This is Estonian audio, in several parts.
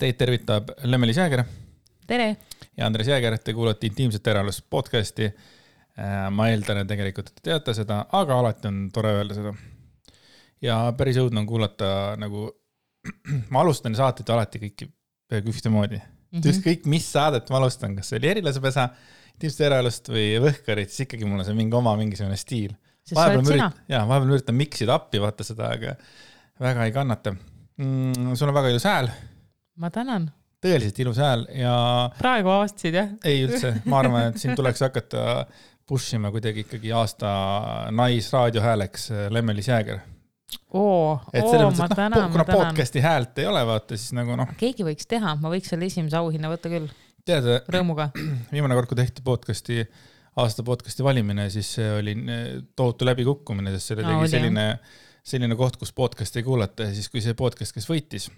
Teid tervitab Lemmelis Jääger. Tere! Ja Andres Jääger, te kuulate Intiimset eraelust podcasti. Ma eeldan, et tegelikult te teate seda, aga alati on tore öelda seda. Ja päris õudne on kuulata nagu, ma alustan saateid alati kõiki peaaegu ühtemoodi. Kõik, mis saadet ma alustan, kas see oli Erilasepesa, Intiimset eraelust või Võhkarit, siis ikkagi mul on see mingisugune stiil. Vahepeal üritan miksida appi, vaata seda, aga väga ei kannata. Sul on väga ilus hääl. Ma tänan. Tõeliselt ilus hääl ja... Praegu aastasid, jah? Ei üldse. Ma arvan, et siin tuleks hakata pushima kuidagi ikkagi aasta naisraadiohääleks Lemmelis Jääger. Ma tänan. Kuna podcasti häält ei ole, vaata, siis nagu noh... Keegi võiks teha, ma võiks selle esimese auhinna võtta küll. Tead, rõõmuga. Viimane kord, kui tehti aasta podcasti valimine, siis see oli tohutu läbikukkumine, sest selle tegi selline koht, kus podcast ei kuulata ja siis kui see podcast, kes võitis,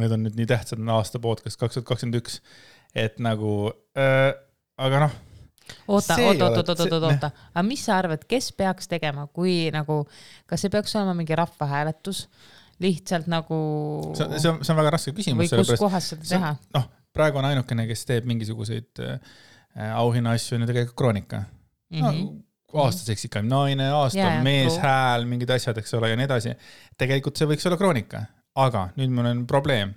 need on nüüd nii tähtsad aasta podcast 2021, et nagu, aga noh. Oota. Aga mis sa arvad, kes peaks tegema, kui nagu, kas see peaks olema mingi rahvahääletus, lihtsalt nagu... See on väga raske küsimus. Või kus kohas seda teha? Praegu on ainukene, kes teeb mingisuguseid auhinna asju, on ju tegelikult Kroonika. Aastaseks ikka naine, aasta mees, hääl, mingid asjad, eks ole, ja nii edasi. Tegelikult see võiks olla Kroonika, aga nüüd mul on probleem.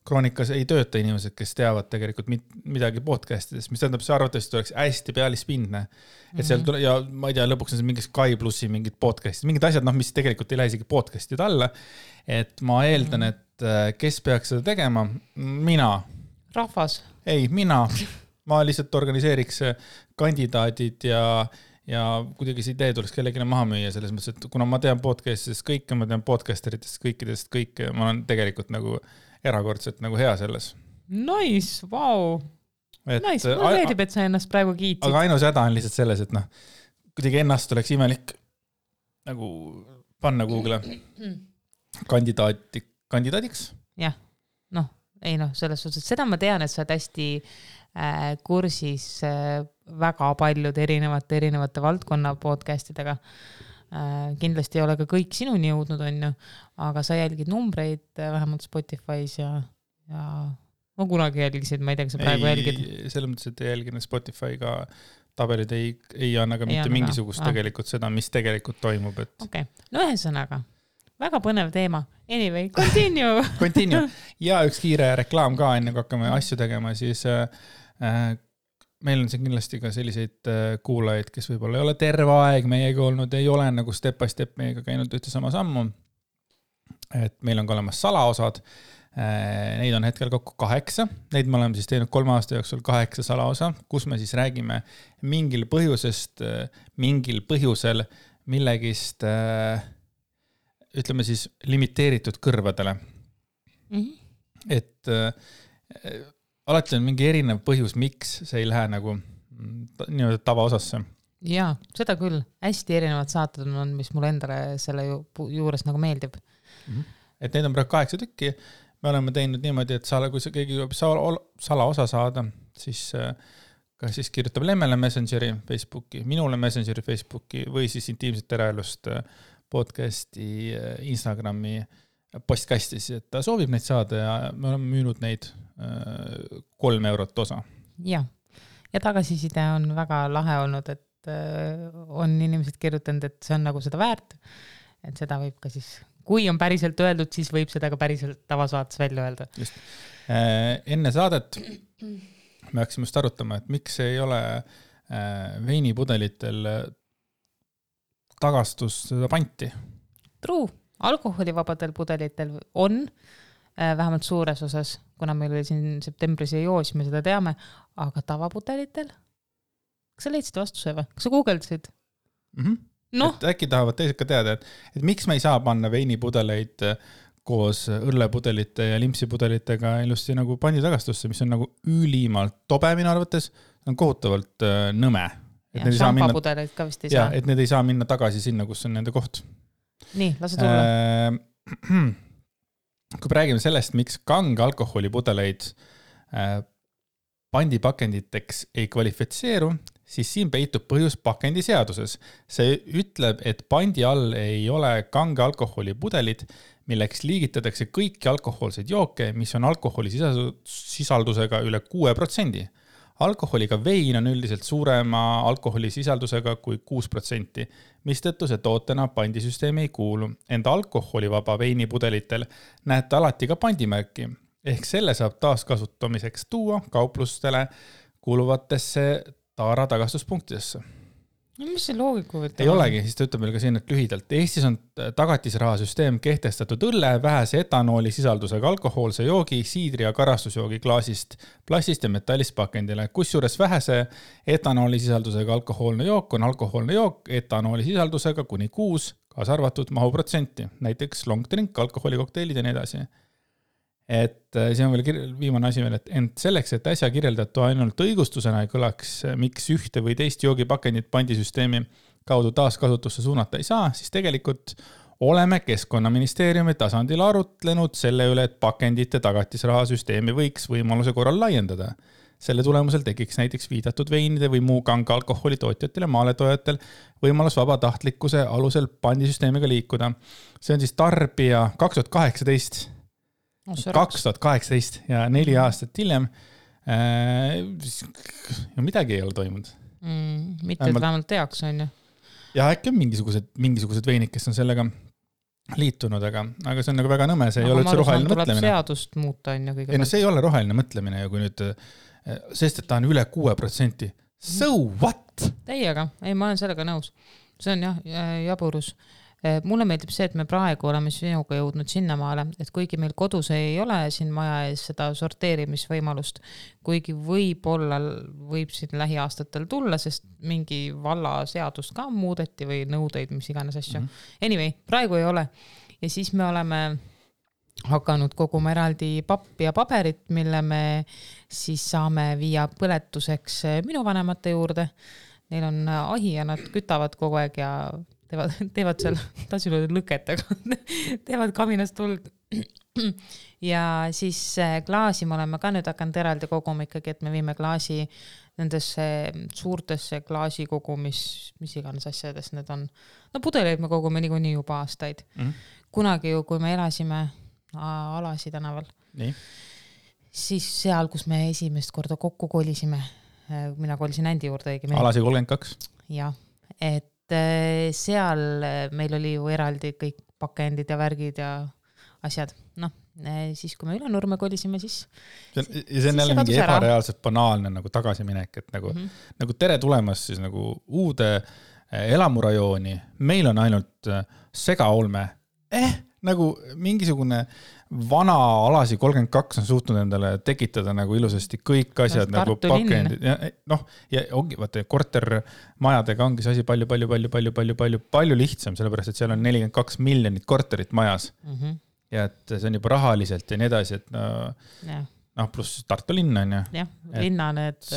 Kroonikas ei tööta inimesed, kes teavad tegelikult midagi podcastidest, mis tähendab, see arvatavasti oleks hästi pealispindne. Et seal tule, ja ma ei tea, lõpuks on see mingi Sky Plussi mingid podcastid, mingid asjad, mis tegelikult ei lähe isegi podcastid alla. Et ma eeldan, et kes peaks seda tegema? Mina. Rahvas? Ei, mina. Ma lihtsalt organiseeriks kandidaadid ja kuidagi see idee tuleks kellegile maha müüa selles mõttes, et kuna ma tean podcastidest kõike, ma tean podcasteritest kõikidest kõike, ma olen tegelikult nagu erakordselt nagu hea selles. Nice, vau. Nice, mulle meeldib, et sa ennast praegu kiitsid. Aga ainus häda on lihtsalt selles, et kuidagi ennast oleks imelik nagu panna Google kandidaadiks. Jah, selles suhtes, seda ma tean, et sa oled hästi kursis väga paljude erinevate valdkonna podcastidega. Kindlasti ei ole ka kõik sinuni jõudnud, aga sa jälgid numbreid vähemalt Spotify's ja ma kunagi jälgisid, ma ei tea, kas sa praegu jälgid. Selles mõttes, et ei jälginud Spotify'ga tabelid ei anna ka mitte mingisugust tegelikult seda, mis tegelikult toimub. Okei, ühesõnaga, väga põnev teema. Anyway, continue. Ja üks kiire reklaam ka, enne kui hakkame asju tegema, siis meil on siin kindlasti ka selliseid kuulajaid, kes võib-olla ei ole terve aeg meiega olnud, ei ole nagu step by step meiega käinud ühte sama sammu. Et meil on ka olemas salaosad. Neid on hetkel kokku 8. Neid me oleme siis teinud 3 aasta jooksul 8 salaosa, kus me siis räägime mingil põhjusel millegist, ütleme siis limiteeritud kõrvadele. Et alati on mingi erinev põhjus, miks see ei lähe nagu nii-öelda tavaosasse. Jaa, seda küll. Hästi erinevad saated on, mis mulle endale selle juures nagu meeldib. Et neid on praegu 8 tükki. Me oleme teinud niimoodi, et kui keegi salaosa saada, siis kirjutab Lemmele Messengeri Facebooki, minule Messengeri Facebooki või siis Intiimset eraelust podcasti Instagrami postkastis, et ta soovib neid saada ja me oleme müünud neid 3 eurot osa. Ja tagasiside on väga lahe olnud, et on inimesed kirjutanud, et see on nagu seda väärt, et seda võib ka siis, kui on päriselt öeldud, siis võib seda ka päriselt tavasaates välja öelda. Just. Enne saadet me hakkasime just arutama, et miks ei ole veinipudelitel tagastus seda panti. True. Alkoholivabadel pudelitel on vähemalt suures osas, kuna meil oli siin septembris ja joos, me seda teame, aga tavapudelitel? Kas sa leidsid vastuse või? Kas sa googledasid? Et äkki tahavad teised ka teada, et miks me ei saa panna veinipudeleid koos õrlepudelite ja limpsipudelitega ilusti nagu panditagastusse, mis on nagu ülimalt tobe minu arvates, on kohutavalt nõme. Ja šampapudeleid ka vist ei saa. Ja, et need ei saa minna tagasi sinna, kus on nende koht. Nii, lase tulla. Kui räägime sellest, miks kange alkoholipudeleid pandipakenditeks ei kvalifitseeru, siis siin peitub põhjus pakendiseaduses. See ütleb, et pandi all ei ole kange alkoholi pudelid, milleks liigitatakse kõiki alkohoolseid jooke, mis on alkoholisisaldusega üle 6%. Alkoholiga vein on üldiselt suurema alkoholisisaldusega kui 6%, mistõttu see tootena pandisüsteemi ei kuulu. Enda alkoholivaba veinipudelitel näete alati ka pandimärki, ehk selle saab taaskasutamiseks tuua kauplustele kuuluvatesse taara tagastuspunktidesse. No, mis see loogika võtta? Ei olegi, siis ta ütleb meil ka siin, et lühidalt. Eestis on tagatisrahasüsteem kehtestatud õlle, vähese etanooli sisaldusega alkohoolse joogi, siidri ja karastusjoogi klaasist, plastist ja metallist pakendile. Kusjuures vähese etanooli sisaldusega alkohoolne jook on alkohoolne jook etanooli sisaldusega kuni 6, kaasa arvatud mahuprotsenti, näiteks long drink, alkoholikokteilid ja nii edasi. Et siin on veel viimane asi veel, et ent selleks, et äsja kirjeldatu ainult õigustusena ei kõlaks, miks ühte või teist joogipakendit pandisüsteemi kaudu taaskasutusse suunata ei saa, siis tegelikult oleme Keskkonnaministeeriumi tasandil arutlenud selle üle, et pakendite tagatisrahasüsteemi võiks võimaluse korral laiendada. Selle tulemusel tekiks näiteks viidatud veinide või muu kange alkoholi tootjatel ja maaletojatel võimalus vabatahtlikkuse alusel pandisüsteemiga liikuda. See on siis tarbija 2018 ja 4 aastat hiljem midagi ei ole toimunud. Mitte vähemalt teaks on ju. Ja äkki on mingisugused veinid, kes on sellega liitunud, aga see on nagu väga nõme, see ei ole üldse roheline mõtlemine. Tuleb seadust muuta on ju kõige. Ei, no see ei ole roheline mõtlemine ja kui nüüd, sest et ta on üle 6%. So what? Teiega, ei ma olen sellega nõus. See on jah, jaburus. Mulle meeldib see, et me praegu oleme sinuga jõudnud sinnamaale, et kuigi meil kodus ei ole siin maja ees seda sorteerimisvõimalust, kuigi võib siin lähiaastatel tulla, sest mingi valla seadust ka muudeti või nõudeid, mis iganes asju. Anyway, praegu ei ole. Ja siis me oleme hakanud koguma eraldi pappi ja paberit, mille me siis saame viia põletuseks minu vanemate juurde. Neil on ahi ja nad kütavad kogu aeg ja teevad seal, tahtsin öelda lõketega, teevad kaminast tuld. Ja siis klaasi me oleme ka nüüd hakanud eraldi koguma ikkagi, et me viime klaasi nendesse suurtesse klaasikogu, mis iganes asjades need on. No pudeleid me kogume niikuinii juba aastaid. Kunagi ju, kui me elasime Alasi tänaval, siis seal, kus me esimest korda kokku kolisime, mina kolisin Ändi juurde õigemini. Alasi 32. Jah, et seal meil oli ju eraldi kõik pakendid ja värgid ja asjad. No, siis kui me Ülenurme kolisime, siis... Ja see on jälle mingi ebareaalselt banaalne nagu tagasiminek, et nagu tere tulemas siis nagu uude elamurajooni. Meil on ainult segaolme. Nagu mingisugune vana Alasi 32 on suutnud endale tekitada nagu ilusasti kõik asjad nagu pakendid. Ja ongi, vaata, kortermajadega ongi see asi palju lihtsam, sellepärast, et seal on 42 miljonit korterit majas. Ja et see on juba rahaliselt ja nii edasi, et pluss Tartu linn on ju. Jah, linna need...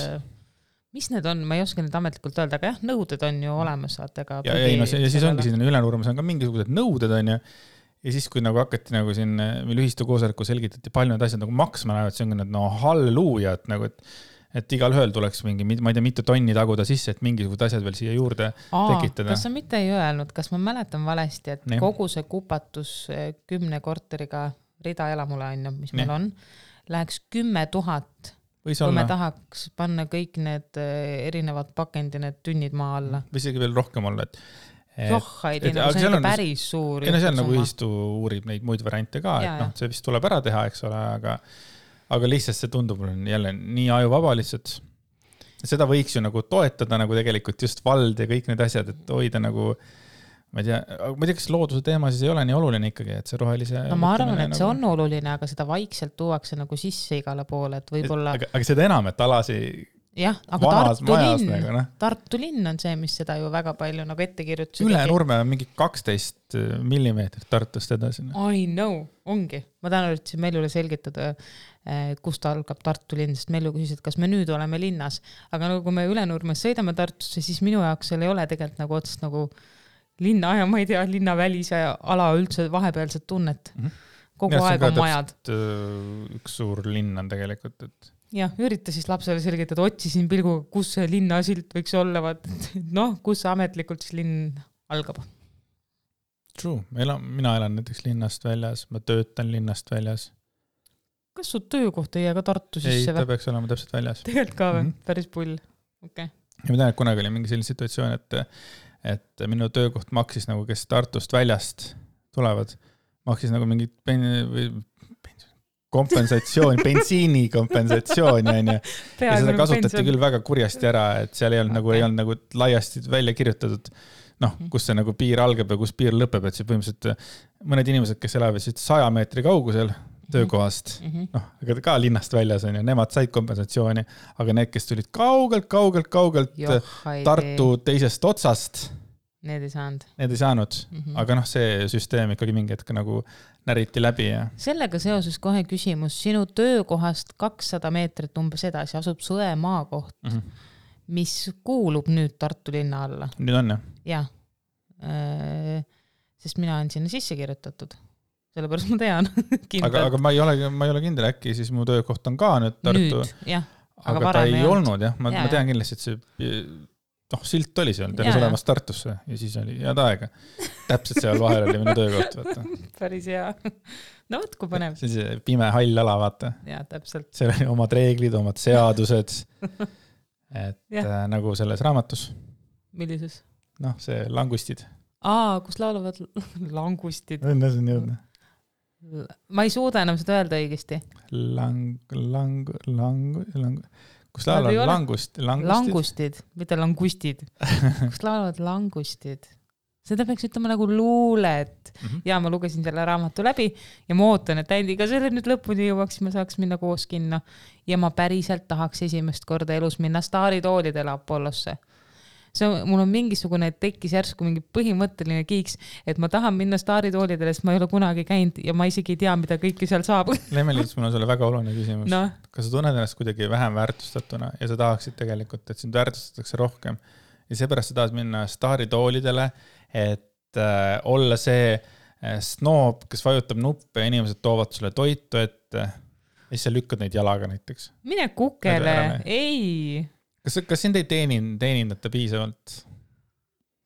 Mis need on? Ma ei oska need ametlikult öelda, aga jah, nõuded on ju olemas. Ja siis ongi siin Ülenurmes on ka mingisugused nõuded on ju. Ja siis, kui nagu hakati nagu siin meil ühistu koosoleku selgitati palju need asjad nagu maksma lähevad, see on need halleluuja, et nagu, et igal ühel tuleks mingi, ma ei tea, mitu tonni taguda sisse, et mingisugused asjad veel siia juurde tekitada. Kas sa mitte ei öelnud, kas ma mäletan valesti, et kogu see kupatus 10 korteriga rida elamule on, mis meil on, läheks 10 000, kui me tahaks panna kõik need erinevad pakendi, need tünnid maa alla. Või isegi veel rohkem olla, et see on päris suur. Ja seal nagu ühistu uurib neid muid variante ka, et see vist tuleb ära teha, eks ole, aga lihtsalt see tundub jälle nii ajuvaba lihtsalt. Seda võiks ju nagu toetada nagu tegelikult just vald ja kõik need asjad, et hoida nagu, ma ei tea, kas looduse teema siis ei ole nii oluline ikkagi, et see rohelise... No ma arvan, et see on oluline, aga seda vaikselt tuuakse nagu sisse igale poole, et võib-olla... Aga seda enam, et Alasi... Jah, aga Tartu linn on see, mis seda ju väga palju nagu ette kirjutas. Ülenurme on mingi 12 millimeetrit Tartust edasi. I know, ongi. Ma tahan üritsin Meljule selgitada, kust algab Tartu linn, sest Melju küsis, et kas me nüüd oleme linnas. Aga nagu kui me Ülenurmes sõidame Tartusse, siis minu jaoks seal ei ole tegelikult nagu otsest nagu linna ja ma ei tea, linnavälise ala üldse vahepealset tunnet. kogu aeg on majad. Üks suur linn on tegelikult, et jah, ürita siis lapsele selgitada, otsisin pilguga, kus see linnasilt võiks olla, kus ametlikult siis linn algab. True, mina elan näiteks linnast väljas, ma töötan linnast väljas. Kas su töökoht ei jää ka Tartu sisse? Ei, ta peaks olema täpselt väljas. Tegelikult ka või? Päris pull. Okay. Ja ma tean, et kunagi oli mingi selline situatsioon, et minu töökoht maksis nagu, kes Tartust väljast tulevad, maksis nagu mingit kompensatsiooni, bensiini kompensatsiooni, on ju. Ja seda kasutati küll väga kurjasti ära, et seal ei olnud nagu laiasti välja kirjutatud, kus see nagu piir algab ja kus piir lõpeb, et see põhimõtteliselt mõned inimesed, kes elavad 100 meetri kaugusel töökohast, aga ka linnast väljas on ju, nemad said kompensatsiooni, aga need, kes tulid kaugelt Tartu teisest otsast, need ei saanud. Aga see süsteem ikkagi mingi hetk nagu näriti läbi. Ja. Sellega seoses kohe küsimus, sinu töökohast 200 meetrit umbes edasi asub Sõe maakoht, mis kuulub nüüd Tartu linna alla. Nüüd on, jah? Jah, sest mina olen sinna sisse kirjutatud. Sellepärast ma tean. aga ma ei ole kindel, äkki siis mu töökoht on ka nüüd Tartu. Nüüd, jah. Aga ta ei olnud, jah. Ma tean kindlasti, et see silt oli seal, teles olemas Tartusse ja siis oli head aega. Täpselt seal vahel oli minu töökoht, vaata. Päris hea. No võt, kui põnev. See on see pime hall ala, vaata. Jaa, täpselt. Seal oli omad reeglid, omad seadused. Et nagu selles raamatus. Millises? See langustid. Kus laulavad langustid. Õnne, see on jõudne. Ma ei suuda enam seda öelda õigesti. Kus laulavad langustid, mitte langustid. Kus laulavad langustid. Seda peaks ütlema nagu luulet. Ja ma lugesin selle raamatu läbi ja ma ootan, et Andiga selle nüüd lõpuni jõuaks, ma saaks minna koos kinno. Ja ma päriselt tahaks esimest korda elus minna staaritoolidele Apollosse. Mul on mingisugune tekkis järsku mingi põhimõtteline kiiks, et ma tahan minna staaritoolidele, sest ma ei ole kunagi käinud ja ma isegi ei tea, mida kõike seal saab. Lemmelis, mul on sulle väga oluline küsimus. Kas sa tunned ennast kuidagi vähem väärtustatuna ja sa tahaksid tegelikult, et sind väärtustatakse rohkem ja seepärast sa tahad minna staaritoolidele, et olla see snoob, kes vajutab nuppe ja inimesed toovad sulle toitu ette ja siis sa lükkad neid jalaga näiteks. Mine kukele, ei... Kas sind ei teenindata piisavalt?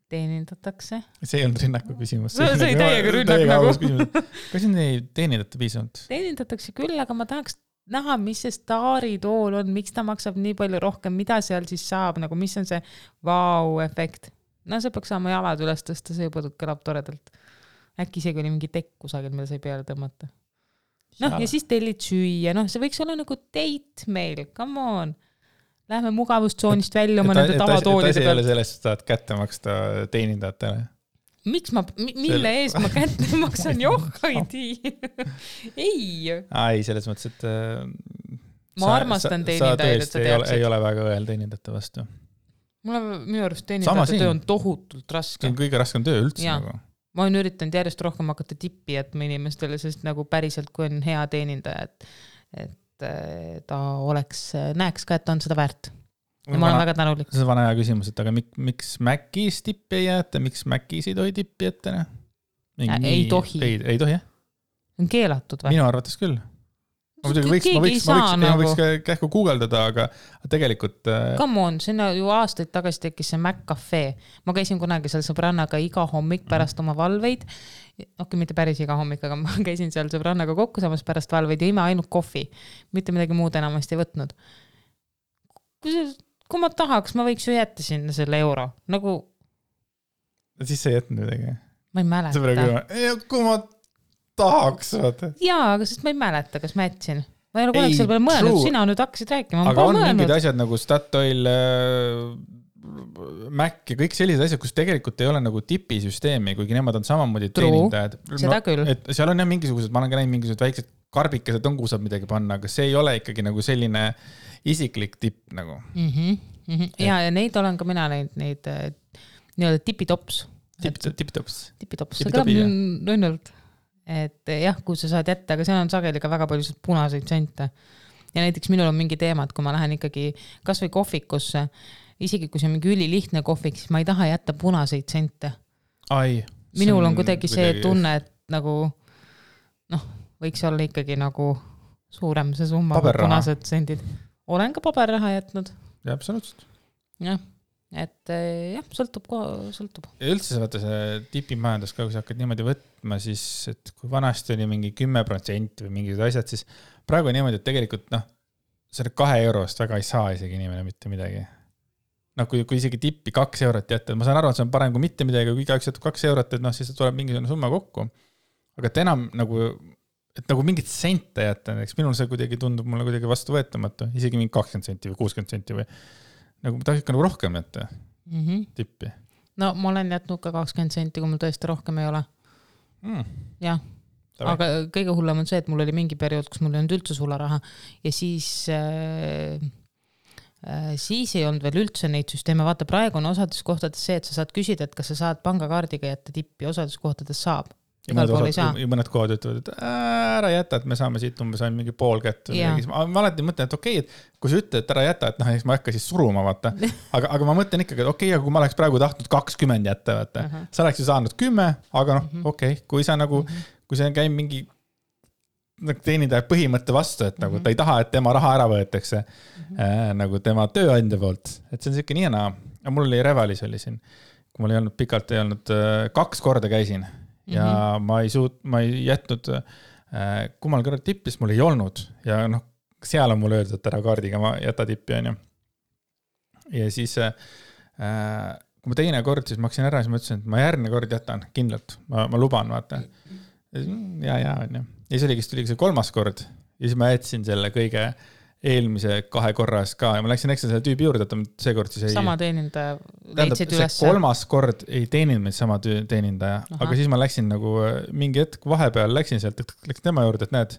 Teenindatakse? See ei olnud rünnaku küsimus. See oli täiega rünnak nagu. Kas sind ei teenindata piisavalt? Teenindatakse küll, aga ma tahaks näha, mis see staaritool on, miks ta maksab nii palju rohkem, mida seal siis saab, nagu mis on see vau-efekt. See peaks saama jalad üles tõsta, see juba kõlab toredalt. Äkki isegi oli mingi tekk kusagil, mida sai peale tõmmata. Ja siis tellid süüa, see võiks olla nagu date meil, come on. Lähme mugavustsoonist välja oma nende tavatoolide pealt. Ei ole sellest, et saad kätte maksta teenindajatele. Mille ees ma kätte maksan? Ei, selles mõttes, et ma armastan teenindajaid, et sa teaksid. Ei ole väga õel teenindajate vastu. Minu arust teenindajate töö on tohutult raske. See on kõige raskem töö üldse. Nagu. Ma olen üritanud järjest rohkem hakata tippi jätma inimestele, sest nagu päriselt, kui on hea teenindaja, et ta näeks ka, et on seda väärt. Ja ma olen väga tänulik. See on vana hea küsimus, et aga miks Mäkis tippi ei jäeta, miks Mäkis ei tohi tippi jätta? Ei tohi. Ei tohi, jah? On keelatud või? Minu arvates küll. Ma võiks kähku guugeldada, aga tegelikult... Come on, sinna ju aastaid tagasi tekkis see Mac-Cafe. Ma käisin kunagi seal sõbrannaga iga hommik pärast oma valveid. Mitte päris iga hommik, aga ma käisin seal sõbrannaga kokku samas pärast valveid ja ime ainult kohvi. Mitte midagi muud enamasti võtnud. Kui ma tahaks, ma võiks ju jätta sinna selle euro. Nagu... Siis sa ei jätnud midagi? Ma ei mäleta. Kui ma tahaks, vaata. Jaa, aga sest ma ei mäleta, kas ma jätsin. Ma ei ole kunagi selle peale mõelnud, sina nüüd hakkasid rääkima. Aga on mingid asjad nagu Statoil, Mac ja kõik sellised asjad, kus tegelikult ei ole nagu tipisüsteemi, kuigi nemad on samamoodi teenindajad. Seda küll. Et seal on jah mingisugused, ma olen ka näinud mingisugused väiksed karbikesed on, kuhu saab midagi panna, aga see ei ole ikkagi nagu selline isiklik tipp nagu. Ja neid olen ka mina neid nii-öelda tipitops. Tipitops. See kõlab nõnnult. Et jah, kui sa saad jätta, aga seal on sageli ka väga palju punaseid sente. Ja näiteks minul on mingi teema, et kui ma lähen ikkagi kas või kohvikusse, isegi kui see on mingi ülilihtne kohvik, siis ma ei taha jätta punaseid sente. Minul on kuidagi see tunne, et nagu võiks olla ikkagi nagu suurem see summa, punased sendid. Olen ka paberraha jätnud. Ja, absoluutselt. Jah, et jah, sõltub. Ja üldse vaata see tipimajandus, kui sa hakkad niimoodi võtma, siis et kui vanasti oli mingi 10% või mingid asjad, siis praegu on niimoodi, et tegelikult selle 2 eurost väga ei saa isegi inimene mitte midagi. Kui isegi tippi 2 eurot jätta, ma saan aru, et see on parem kui mitte midagi, kui igaüks jätab 2 eurot, et siis tuleb mingisugune summa kokku. Aga et enam nagu mingit sente jätta, eks minul see kuidagi tundub mulle kuidagi vastu võetamatu, isegi mingi 20 senti või 60 senti või nagu ma tahaks ikka nagu rohkem jätta tippi. No ma olen jätnud ka 20 senti, kui mul tõesti rohkem ei ole. Jah. Aga kõige hullem on see, et mul oli mingi periood, kus mul ei olnud üldse sularaha ja siis ei olnud veel üldse neid süsteeme. Vaata, praegu on osades kohtades see, et sa saad küsida, et kas sa saad pangakaardiga jätta tippi, osades kohtades saab. Ja mõned kohad ütlevad, et ära jäta, et me saame siit umbes ainult mingi pool kätt. Ma alati mõtlen, et okei, et kui sa ütled, et ära jäta, et eks ma ei hakka siis suruma, vaata. Aga ma mõtlen ikkagi, et okei, aga kui ma oleks praegu tahtnud 20 jätta, vaata. Sa oleks ju saanud 10, aga okei, kui sa nagu, kui see käib mingi teenindaja põhimõtte vastu, et nagu ta ei taha, et tema raha ära võetakse nagu tema tööandja poolt. Et see on siuke nii ja mul oli Revalis oli siin, kui mul ei olnud pikalt, ei olnud 2 korda käisin ja ma ei jätnud, kummal kõrval tippis mul ei olnud ja seal on mul öeldud, et ära kaardiga ma jäta tippi, on ju. Ja siis kui ma teine kord, siis maksin ära, siis ma ütlesin, et ma järgmine kord jätan kindlalt, ma luban, vaata. Ja, on ju. Ja siis oligi see 3. kord ja siis ma jätsin selle kõige eelmise 2 korras ka ja ma läksin ekstra selle tüübi juurde, et see kord siis ei... Sama teenindaja leidsid üles. See 3. kord ei teeninud meid sama teenindaja, aga siis ma läksin nagu mingi hetk vahepeal, läksin sealt, läksin tema juurde, et näed,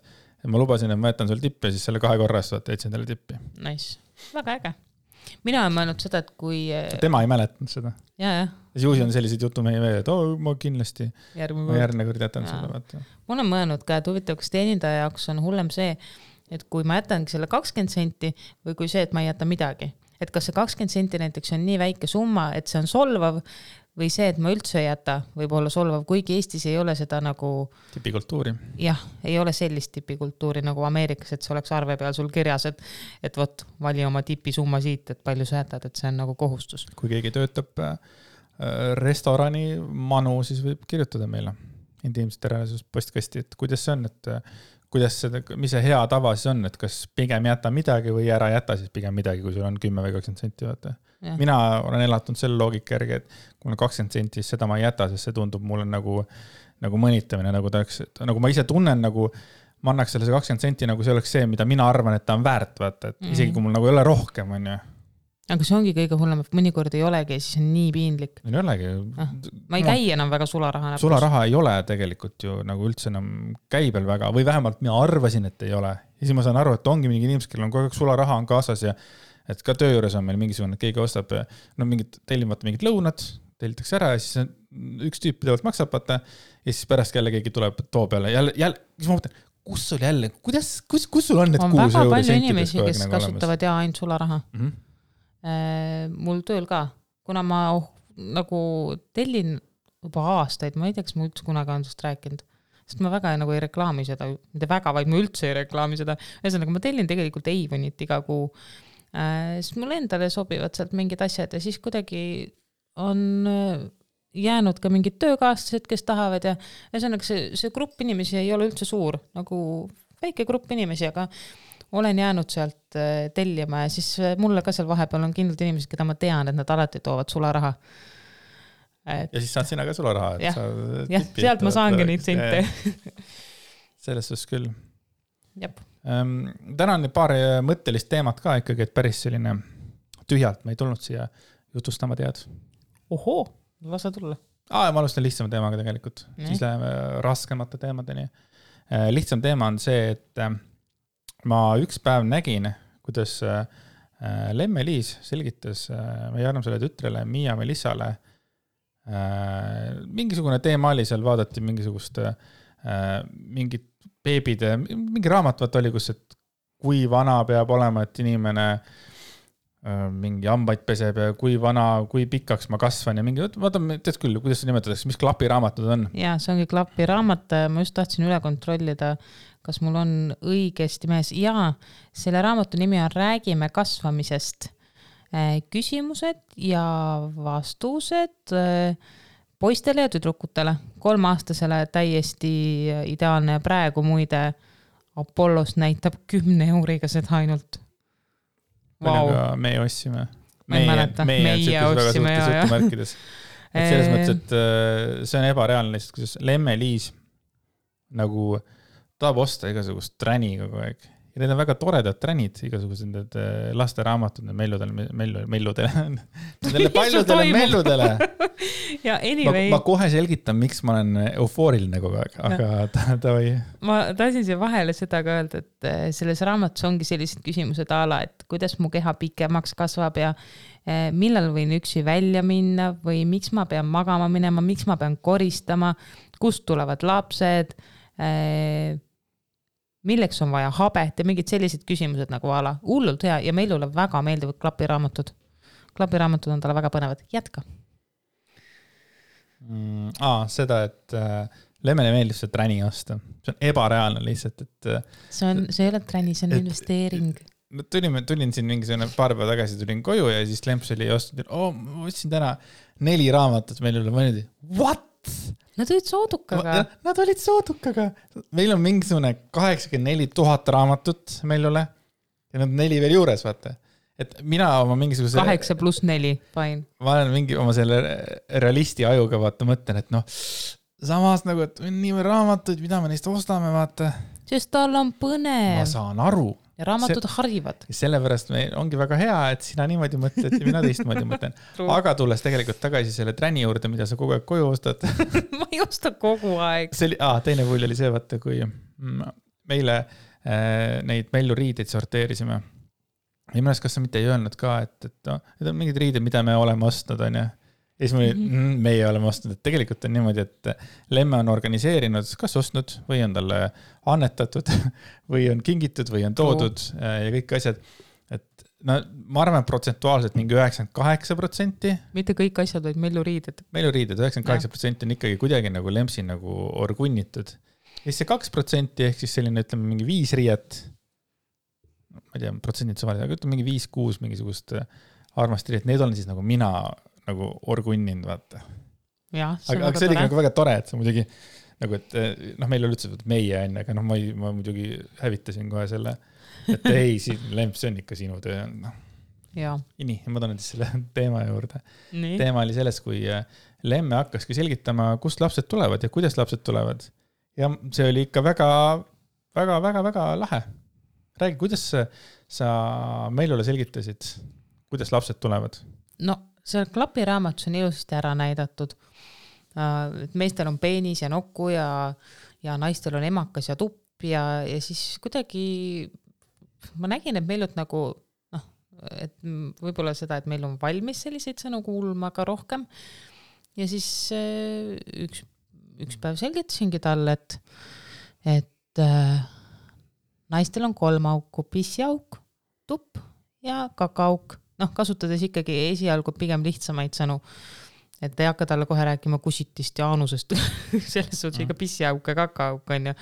ma lubasin, et ma jätan sul tippi ja siis selle 2 korras jätsin talle tippi. Nice. Väga äge. Mina olen mõelnud seda, et kui... Tema ei mäletanud seda. Ja. Juusi on sellised jutu meie veel, et ma kindlasti järgmine kord jätan seda. Vaata. Ma olen mõelnud ka, et huvitav, kas teenindaja jaoks on hullem see, et kui ma jätangi selle 20 senti või kui see, et ma ei jäta midagi. Et kas see 20 senti näiteks on nii väike summa, et see on solvav või see, et ma üldse ei jäta, võib olla solvav, kuigi Eestis ei ole seda nagu... Tipikultuuri. Jah, ei ole sellist tipikultuuri nagu Ameerikas, et see oleks arve peal sul kirjas, et võt, vali oma tipisumma siit, et palju sa jätad, et see on nagu kohustus. Kui keegi töötab restorani manu, siis võib kirjutada meile intiimsete reaalsus postkasti, et kuidas see on, et mis see hea tava siis on, et kas pigem jäta midagi või ära jäta siis pigem midagi, kui sul on 10 või 20 senti. Vaata. Mina olen elatunud selle loogika järgi, et kui on 20 senti, siis seda ma ei jäta, sest see tundub mulle nagu mõnitamine, nagu ma ise tunnen, nagu ma annaks selle 20 senti, nagu see oleks see, mida mina arvan, et ta on väärt, vaata, et isegi kui mul nagu ei ole rohkem, on ju. Aga see ongi kõige hullem, et mõnikord ei olegi, siis on nii piinlik. Ei olegi. Ma ei käi enam väga sularaha. Sularaha ei ole tegelikult ju nagu üldse enam käibel väga, või vähemalt mina arvasin, et ei ole. Ja siis ma saan aru, et ongi mingi inimesed, kellel on kogu aeg sularaha on kaasas ja et ka töö juures on meil mingisugune, et keegi ostab tellimata mingid lõunad, tellitakse ära ja siis üks tüüp pidevalt maksab, vaata, ja siis pärast jälle keegi tuleb too peale. Jälle, siis ma mõtlen, kus sul jälle, kus sul on need 6 euro sentidest? On väga palju inimesi, kes kasutavad ja ainult sularaha. Mul tööl ka, kuna ma nagu tellin juba aastaid, ma ei tea, kas ma üldse kunagi on sellest rääkinud, sest ma väga nagu ei reklaami seda, mitte väga, vaid ma üldse ei reklaami seda, ühesõnaga ma tellin tegelikult Avonit iga kuu, siis mul endale sobivad sealt mingid asjad ja siis kuidagi on jäänud ka mingid töökaaslased, kes tahavad ja ühesõnaga see grupp inimesi ei ole üldse suur, nagu väike grupp inimesi, aga olen jäänud sealt tellima ja siis mulle ka seal vahepeal on kindlalt inimesed, keda ma tean, et nad alati toovad sularaha. Ja siis saad sina ka sularaha. Jah, sealt ma saangi neid sente. Selles suhtes küll. Jep. Täna on paar mõttelist teemat ka ikkagi, et päris selline tühjalt me ei tulnud siia jutustama tead. Ohoo, lasa tulla. Ma alustan lihtsama teemaga tegelikult. Siis läheme raskemate teemadeni. Lihtsam teema on see, et ma üks päev nägin, kuidas Lemme-Liis selgitas meie armsale tütrele Miia Melissale mingisugune teema oli seal, vaadati mingisugust mingit beebide, mingi raamat oli, kus, et kui vana peab olema, et inimene mingi hambaid peseb ja kui vana, kui pikaks ma kasvan ja mingi, vaatame, tead küll, kuidas see nimetatakse, mis klapiraamatud on? Jaa, see ongi klapiraamat, ma just tahtsin üle kontrollida, kas mul on õigesti mees? Jaa, selle raamatu nimi on Räägime kasvamisest. Küsimused ja vastused poistele ja tüdrukutele. 3-aastasele täiesti ideaalne. Praegu muide Apollos näitab 10 euriga seda ainult. Wow. Me ostsime. Meie ostsime. Et selles mõttes, et see on ebareaalne lihtsalt, kuidas Lemme-Liis nagu tahab osta igasugust träni kogu aeg. Ja need on väga toredad tränid, igasugused need lasteraamatud, melludele. Nendele paljudele melludele. Ja anyway. Ma kohe selgitan, miks ma olen eufooriline kogu aeg, aga ta või. Ma tahtsin siia vahele seda ka öelda, et selles raamatus ongi sellised küsimused ala, et kuidas mu keha pikemaks kasvab ja millal võin üksi välja minna või miks ma pean magama minema, miks ma pean koristama, kust tulevad lapsed, milleks on vaja habet ja mingid sellised küsimused nagu ala. Hullult hea ja meilule väga meeldivad klapiraamatud. Klapiraamatud on talle väga põnevad. Jätka. Seda, et Lemmele meeldib see träni osta. See on ebareaalne lihtsalt, et see ei ole träni, see on investeering. Tulin siin mingisugune paar päeva tagasi, tulin koju ja siis Lemps oli ostnud, ma võtsin täna 4 raamatut meil üle, ma olin, what? Nad olid soodukaga. Nad olid soodukaga. Meil on mingisugune 84 000 raamatut meil üle ja nad 4 veel juures, vaata. Et mina oma mingisuguse 8+4, fine. Ma olen mingi oma selle realisti ajuga, vaata, mõtlen, et samas nagu, et nii raamatuid, mida me neist ostame, vaata. Sest tal on põnev. Ma saan aru. Ja raamatud harivad. Sellepärast ongi väga hea, et sina niimoodi mõtled ja mina teistmoodi mõtlen. Aga tulles tegelikult tagasi selle träni juurde, mida sa kogu aeg koju ostad. Ma ei osta kogu aeg. Teine pull oli see, vaata, kui meile neid melluriideid sorteerisime. Ja mõnes, kas sa mitte ei öelnud ka, et need on mingid riided, mida me oleme ostnud, on ja siis meie oleme ostnud, et tegelikult on niimoodi, et Lemme on organiseerinud, kas ostnud või on talle annetatud või on kingitud või on toodud ja kõik asjad. Et ma arvan, protsentuaalselt mingi 98%. Mitte kõik asjad, vaid melluriided. Melluriided, 98% on ikkagi kuidagi nagu Lempsi nagu orgunnitud. Ja siis see 2% ehk siis selline, ütleme, mingi 5 riiet, ma ei tea, protsendid suvaline, aga ütleme mingi 5-6 mingisugust armast riiet, need olen siis nagu mina nagu orgunninud, vaata. Aga see oli nagu väga tore, et see muidugi nagu, et meil oli üldse meie enne, aga ma muidugi hävitasin kohe selle, et ei, Lemps, see on ikka sinu töö. Nii, ma tahan siis selle teema juurde. Teema oli selles, kui Lemme hakkaski selgitama, kust lapsed tulevad ja kuidas lapsed tulevad. Ja see oli ikka väga, väga, väga, väga lahe. Räägi, kuidas sa meilule selgitasid, kuidas lapsed tulevad? See klapiraamatus on ilusasti ära näidatud. Meestel on peenis ja nokku ja naistel on emakas ja tupp ja siis kuidagi ma nägin, et meilt nagu, et võib-olla seda, et meil on valmis selliseid sõnu kuulma ka rohkem. Ja siis üks päev selgitasingi talle, et naistel on 3 auku, pissiauk, tupp ja kakaauk. Kasutades ikkagi esialgu pigem lihtsamaid sõnu, et ei hakka talle kohe rääkima kusitist ja aanusest, selles suhtes ikka pissiauk ja kakaauk on ju.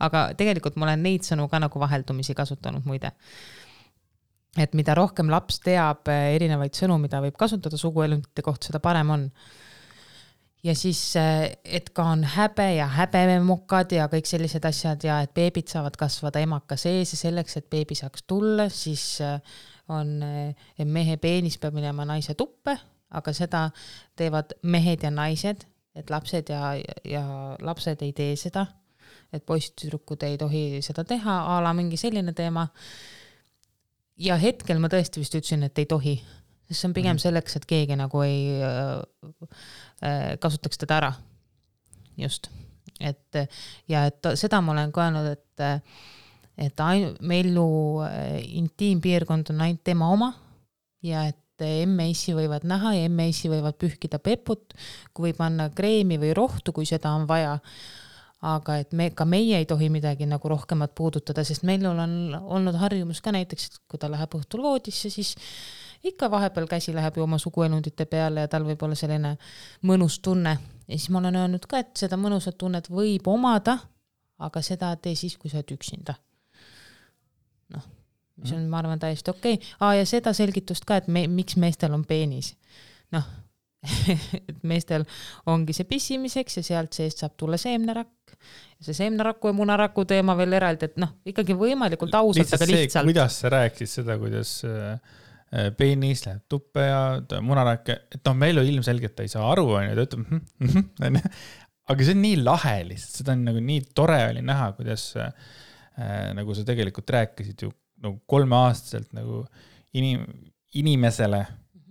Aga tegelikult ma olen neid sõnu ka nagu vaheldumisi kasutanud muide. Et mida rohkem laps teab erinevaid sõnu, mida võib kasutada suguelundite kohta, seda parem on. Ja siis, et ka on häbe ja häbememokad ja kõik sellised asjad ja et beebid saavad kasvada emaka sees ja selleks, et beebi saaks tulla, siis on mehe peenis peab minema naise tuppe, aga seda teevad mehed ja naised, et lapsed ja lapsed ei tee seda, et poistüdrukud ei tohi seda teha, ala mingi selline teema. Ja hetkel ma tõesti vist ütlesin, et ei tohi, sest see on pigem selleks, et keegi nagu ei kasutaks teda ära. Just. Et seda ma olen ka öelnud, et meilu intiimpiirkond on ainult tema oma ja et emme-issi võivad näha ja emme-issi võivad pühkida peput, kui võib panna kreemi või rohtu, kui seda on vaja. Aga et ka meie ei tohi midagi nagu rohkemat puudutada, sest meil on olnud harjumus ka näiteks, et kui ta läheb õhtul voodisse, siis ikka vahepeal käsi läheb ju oma suguelundite peale ja tal võib olla selline mõnus tunne. Ja siis ma olen öelnud ka, et seda mõnusat tunnet võib omada, aga seda tee siis, kui sa oled üksinda. Noh, mis on, ma arvan, täiesti okei. Ja seda selgitust ka, et miks meestel on peenis. Noh, et meestel ongi see pissimiseks ja sealt seest saab tulla seemnerakk. Ja see seemneraku ja munaraku teema veel eraldi, et noh, ikkagi võimalikult ausalt, aga lihtsalt. See, kuidas sa rääkisid seda, kuidas peenis läheb tuppe ja munarak, et noh, meil ilmselgelt ei saa aru, on ju, ta ütleb, aga see on nii lahe lihtsalt, seda on nagu nii tore oli näha, kuidas nagu sa tegelikult rääkisid ju nagu 3-aastaselt nagu inimesele,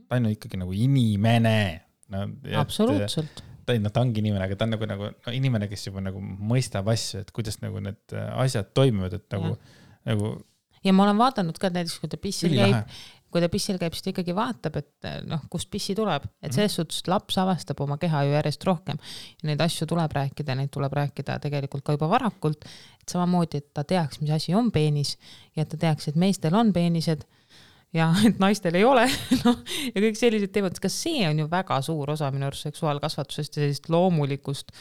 ta on ikkagi nagu inimene. No, absoluutselt. Ta ongi inimene, aga ta on nagu inimene, kes juba nagu mõistab asju, et kuidas nagu need asjad toimivad, et nagu. Ja ma olen vaadanud ka näiteks, kui ta pissil käib, siis ta ikkagi vaatab, et noh, kust pissi tuleb. Et selles suhtes laps avastab oma keha ju järjest rohkem. Ja neid asju tuleb rääkida tegelikult ka juba varakult. Et samamoodi, et ta teaks, mis asi on peenis ja et ta teaks, et meestel on peenised ja et naistel ei ole. No, ja kõik sellised teemad, kas see on ju väga suur osa minu arust seksuaalkasvatusest ja sellist loomulikust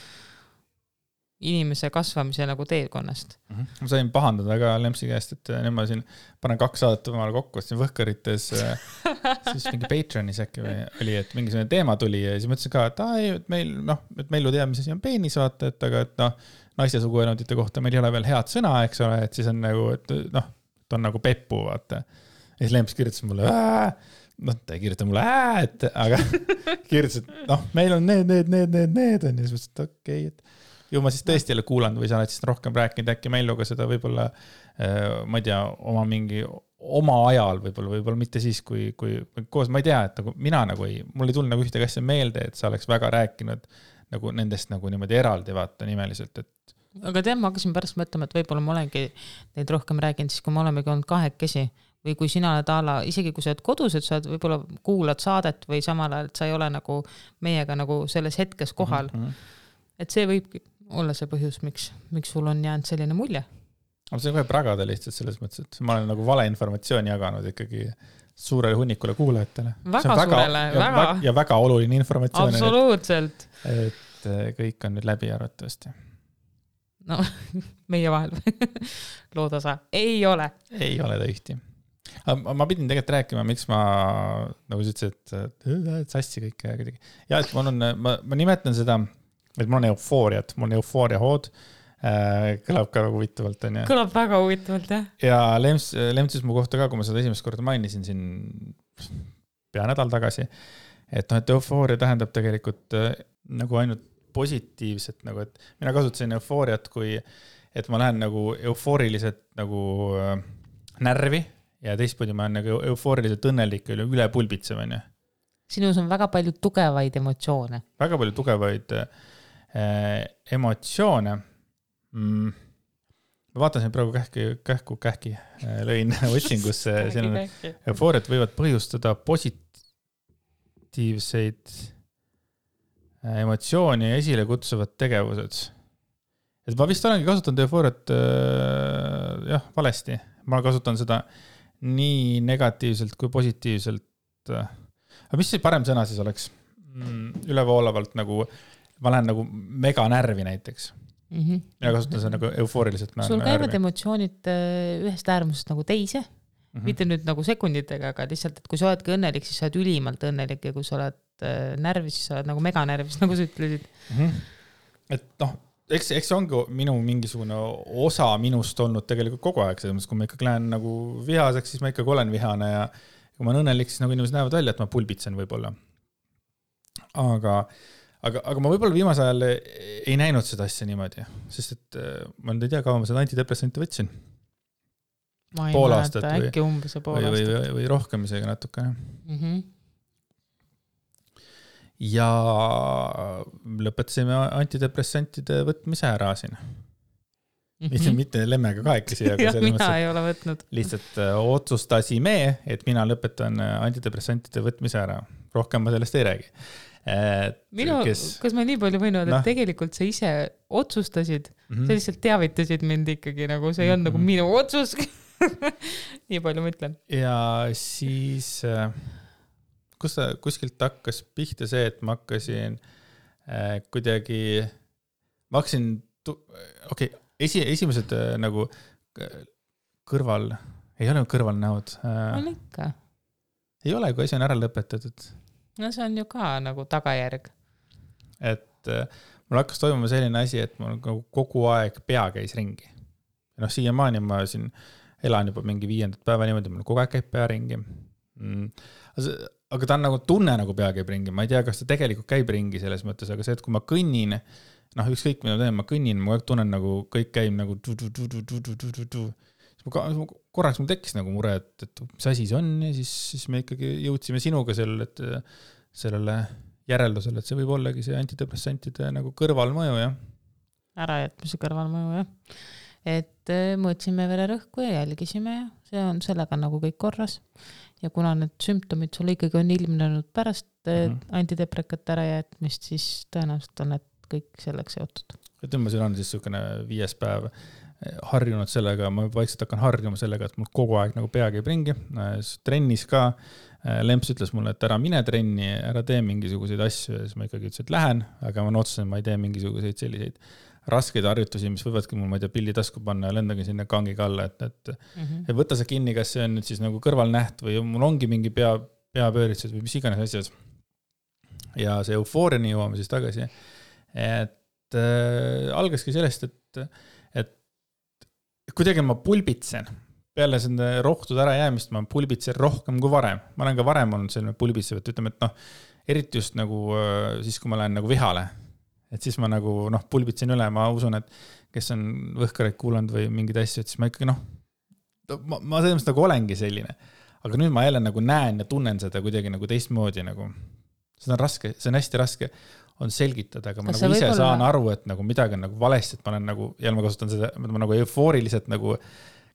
inimese kasvamise nagu teekonnast. Ma sain pahandada ka Lempsi käest, et nüüd ma siin panen 2 saadet omale kokku, siin Võhkarites siis mingi Patreonis äkki oli, et mingisugune teema tuli ja siis mõtlesin ka, et meil ju teame, mis asi on peenis vaata, et aga et noh, naiste suguelundite kohta meil ei ole veel head sõna, eks ole, et siis on nagu, et noh, ta on nagu peppu, vaata. Ja siis Lemps kirjutas mulle, ta ei kirjuta mulle, et aga kirjutas, et noh, meil on need on ja siis mõtlesin, et okei, et ju ma siis tõesti jälle kuulanud või sa oled siis rohkem rääkinud äkki Melluga seda võib-olla, ma ei tea, oma ajal võib-olla mitte siis, kui koos, ma ei tea, et nagu mina nagu mul ei tulnud nagu ühtegi asja meelde, et sa oleks väga rääkinud nagu nendest nagu niimoodi eraldi vaata nimeliselt, et. Aga tead, ma hakkasin pärast mõtlema, et võib-olla ma olengi neid rohkem rääkinud, siis kui me olemegi olnud 2 või kui sina oled isegi kui sa oled kodus, et sa võib-olla kuulad saadet või samal ajal, et sa ei ole nagu meiega nagu selles hetkes kohal. Et see võibki olla see põhjus, miks sul on jäänud selline mulje. Aga see võib ragada lihtsalt selles mõttes, et ma olen nagu valeinformatsiooni jaganud ikkagi suurele hunnikule kuulajatele. Väga suurele, väga. Ja väga oluline informatsioon. Absoluutselt. Et kõik on nüüd läbi arvatavasti. No, meie vahel. Loodasa. Ei ole ta ühti. Ma pidin tegelikult rääkima, miks ma nagu sa ütlesid, et sassi kõik kuidagi. Ja et ma nimetan seda, et mul on eufooria hood, kõlab ka väga huvitavalt. Kõlab väga huvitavalt, jah. Ja Lemtsis mu kohta ka, kui ma seda esimest korda mainisin siin pea nädal tagasi, et eufooria tähendab tegelikult nagu ainult positiivset, nagu et mina kasutasin eufooriat, kui et ma lähen nagu eufooriliselt nagu närvi ja teistpidi ma olen nagu eufooriliselt õnnelik üle pulbitsemine. Sinus on väga palju tugevaid emotsioone. Väga palju tugevaid emotsioone. Ma vaatan siin praegu kähki lõin otsingusse. Eufooriat võivad põhjustada positiivseid emotsiooni ja esile kutsuvad tegevused. Et ma vist olengi kasutanud eufooriat valesti. Ma kasutan seda nii negatiivselt kui positiivselt. Aga mis see parem sõna siis oleks? Ülevoolavalt nagu ma lähen nagu mega närvi näiteks. Ja kasutan seda nagu eufooriliselt. Sul käivad emotsioonid ühest äärmusest nagu teise. Mitte nüüd nagu sekunditega, aga lihtsalt, et kui sa oledki õnnelik, siis sa oled ülimalt õnnelik ja kui sa oled närvis, siis sa oled nagu mega närvis, nagu sa ütlesid. Et noh, eks see ongi minu mingisugune osa minust olnud tegelikult kogu aeg. Selles mõttes, kui ma ikkagi lähen nagu vihaseks, siis ma ikkagi olen vihane ja kui ma olen õnnelik, siis nagu inimesed näevad välja, et ma pulbitsen võib-olla. Aga ma võib-olla viimase ajal ei näinud seda asja niimoodi, sest et ma ei tea, kaua ma seda antidepressanti võtsin. Ma ei mäleta, äkki umbes pool aastat. Või rohkem isegi natukene. Ja lõpetasime antidepressantide võtmise ära siin. Mitte lemmega kahekesi. Ja mina ei ole võtnud. Lihtsalt otsustasime, et mina lõpetan antidepressantide võtmise ära. Rohkem ma sellest ei räägi. Kas ma nii palju võin öelda, et tegelikult sa ise otsustasid, sa lihtsalt teavitasid mind ikkagi, nagu see ei olnud nagu minu otsus. Nii palju ma ütlen. Ja siis kuskilt hakkas pihta see, et ma hakkasin kuidagi, esimesed nagu ei ole kõrvalnäod. On ikka. Ei ole, kui asi on ära lõpetatud. No see on ju ka nagu tagajärg. Et mul hakkas toimuma selline asi, et mul kogu aeg pea käis ringi. Siiamaani ma siin elan juba mingi 5. päeva niimoodi, mul kogu aeg käib pea ringi. Aga ta on nagu tunne nagu pea käib ringi. Ma ei tea, kas ta tegelikult käib ringi selles mõttes, aga see, et kui ma kõnnin, ükskõik mida teen, ma kõnnin, ma tunnen nagu kõik käib nagu korraks mul tekkis nagu mure, et mis asi see on ja siis me ikkagi jõudsime sinuga sellele järeldusele, et see võib ollagi see antidepressantide nagu kõrvalmõju, jah. Ärajätmise kõrvalmõju, jah. Et mõõtsime vererõhku ja jälgisime ja see on sellega nagu kõik korras. Ja kuna need sümptomid sul ikkagi on ilmnenud pärast antideprekate ärajätmist, siis tõenäoliselt on need kõik selleks seotud. Et sul on siis niisugune 5. päev harjunud sellega, ma vaikselt hakkan harjuma sellega, et mul kogu aeg nagu pea käib ringi. Trennis ka Lemps ütles mulle, et ära mine trenni, ära tee mingisuguseid asju ja siis ma ikkagi ütlesin, et lähen, aga ma otsusin, ma ei tee mingisuguseid selliseid raskeid harjutusi, mis võivadki mul, ma ei tea, pilli tasku panna ja lendagi sinna kangiga alla, et võtta see kinni, kas see on nüüd siis nagu kõrvalnäht või mul ongi mingi peapööritsus või mis iganes asjad. Ja see eufooriani jõuame siis tagasi. Et algaski sellest, et kuidagi ma pulbitsen. Peale selle rohtude ära jäämist ma pulbitsen rohkem kui varem. Ma olen ka varem olnud selline pulbitsev, et ütleme, et eriti just nagu siis, kui ma lähen nagu vihale. Et siis ma nagu pulbitsen üle, ma usun, et kes on võhkareid kuulanud või mingid asju, et siis ma ikkagi ma selles nagu olengi selline. Aga nüüd ma jälle nagu näen ja tunnen seda kuidagi nagu teistmoodi nagu. See on raske, see on hästi raske on selgitada, aga ma nagu ise saan aru, et nagu midagi on nagu valesti, et ma olen nagu, ja ma kasutan seda, ma nagu eufooriliselt nagu,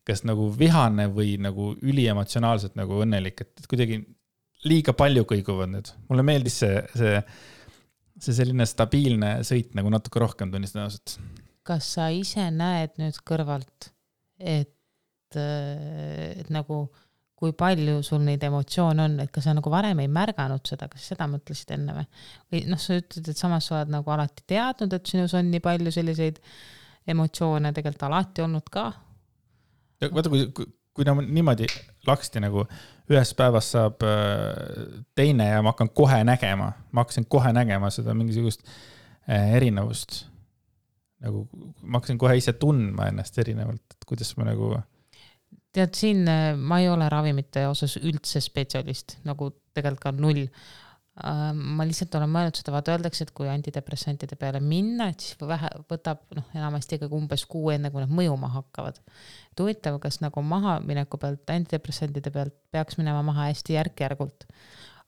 kas nagu vihane või nagu üliemotsionaalselt nagu õnnelik, et kuidagi liiga palju kõiguvad nüüd. Mulle meeldis see selline stabiilne sõit nagu natuke rohkem tunnistan ausalt. Kas sa ise näed nüüd kõrvalt, et nagu kui palju sul neid emotsioone on, et kas sa nagu varem ei märganud seda, kas seda mõtlesid enne või sa ütled, et samas sa oled nagu alati teadnud, et sinus on nii palju selliseid emotsioone tegelikult alati olnud ka? Vaata, kui niimoodi laksti nagu ühes päevas saab teine ja ma hakkasin kohe nägema seda mingisugust erinevust. Nagu ma hakkasin kohe ise tundma ennast erinevalt, et kuidas ma nagu tead, siin ma ei ole ravimite osas üldse spetsialist, nagu tegelikult ka 0. Ma lihtsalt olen mõelnud seda, vaata öeldakse, et kui antidepressantide peale minna, et siis võtab enamasti ikkagi umbes 6 enne, kui nad mõjuma hakkavad. Huvitav, kas nagu maha mineku pealt, antidepressantide pealt peaks minema maha hästi järk-järgult.